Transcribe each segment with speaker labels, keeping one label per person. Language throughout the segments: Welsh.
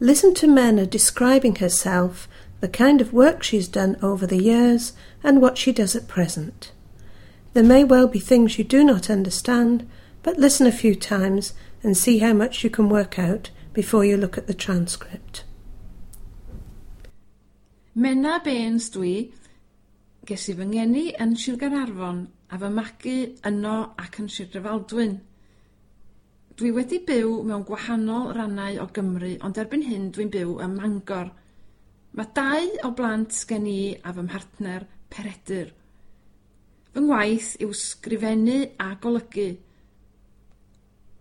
Speaker 1: Listen to Menna describing herself, the kind of work she's done over the years, and what she does at present. There may well be things you do not understand, but listen a few times and see how much you can work out before you look at the transcript.
Speaker 2: Menna Baines dwi. Ges i fy ngeni yn Sir Gaernarfon a fy magu yno ac yn Sir Drefaldwyn. Dwi wedi byw mewn gwahanol rannau o Gymru, ond erbyn hyn dwi'n byw ym Mangor. Mae dau o blant gen i a fy mhartner Peredur. Fy ngwaith yw sgrifennu a golygu.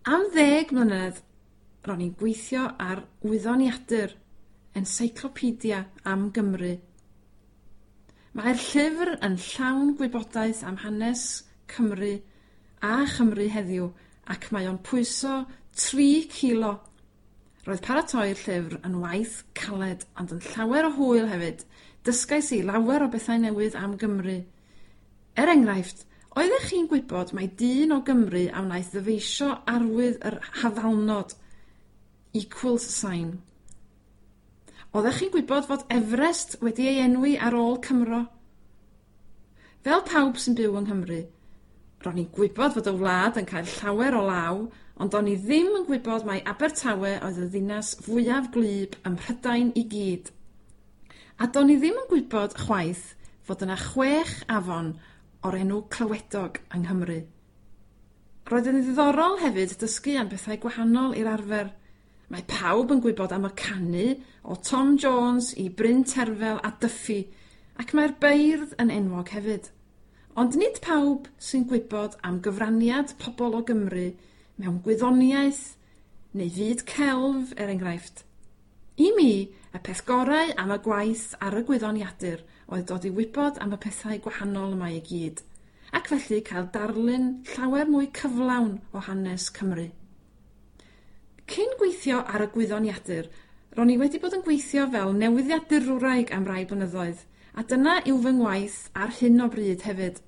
Speaker 2: Am 10 mlynedd ro'n i'n gweithio ar wyddoniadur, encyclopedia am Gymru. Mae'r llyfr yn llawn gwybodaeth am hanes Cymru a Chymru heddiw ac mae o'n pwyso 3 kilo. Roedd paratoi'r llyfr yn waith caled ond yn llawer o hwyl hefyd. Dysgais i lawer o bethau newydd am Gymru. Er enghraifft, oeddech chi'n gwybod mai dyn o Gymru a wnaeth ddyfeisio arwydd yr hafalnod, equals sign? Oeddech chi'n gwybod fod Everest wedi ei enwi ar ôl Cymro? Fel pawb sy'n byw yng Nghymru, ro'n i'n gwybod fod y wlad yn cael llawer o law, ond o'n i ddim yn gwybod mai Abertawe oedd y ddinas fwyaf gwlyb ym Mhrydain i gyd. A do'n i ddim yn gwybod chwaith fod yna chwech afon o'r enw Clywedog yng Nghymru. Roedd yn ddiddorol hefyd dysgu am bethau gwahanol i'r arfer. Mae pawb yn gwybod am y canu o Tom Jones i Bryn Terfel a Duffy, ac mae'r beirdd yn enwog hefyd. Ond nid pawb sy'n gwybod am gyfraniad pobl o Gymru mewn gwyddoniaeth neu fyd celf, er enghraifft. I mi, y peth gorau am y gwaith ar y gwyddoniadur oedd dod i wybod am y pethau gwahanol yma i gyd, ac felly cael darlun llawer mwy cyflawn o hanes Cymru. Cyn gweithio ar y gwyddoniadur, ro'n i wedi bod yn gweithio fel newyddiadurwraig am rai blynyddoedd, a dyna yw fy ngwaith ar hyn o bryd hefyd.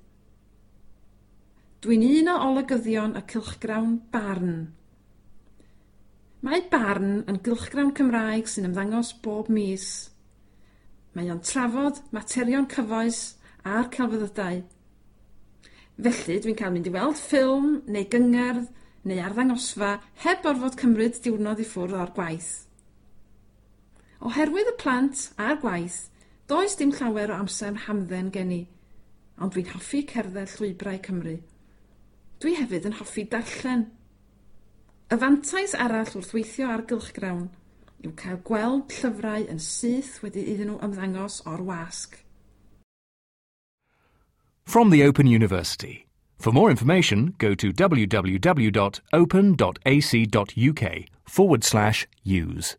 Speaker 2: Dwi'n un o olygyddion y cylchgrawn Barn. Mae Barn yn gylchgrawn Cymraeg sy'n ymddangos bob mis. Mae o'n trafod materion cyfoes a'r celfyddydau. Felly dwi'n cael mynd i weld ffilm neu gyngerdd neu arddangosfa heb orfod cymryd diwrnod i ffwrdd o'r gwaith. Oherwydd y plant a'r gwaith, does dim llawer o amser hamdden gen i, ond dwi'n hoffi cerdded llwybrau Cymru. Dwi hefyd yn hoffi darllen. Y fantais arall wrth weithio ar gylchgrawn yw cael gweld llyfrau yn syth wedi iddyn nhw ymddangos o'r wasg.
Speaker 3: From the Open University. For more information, go to www.open.ac.uk/use.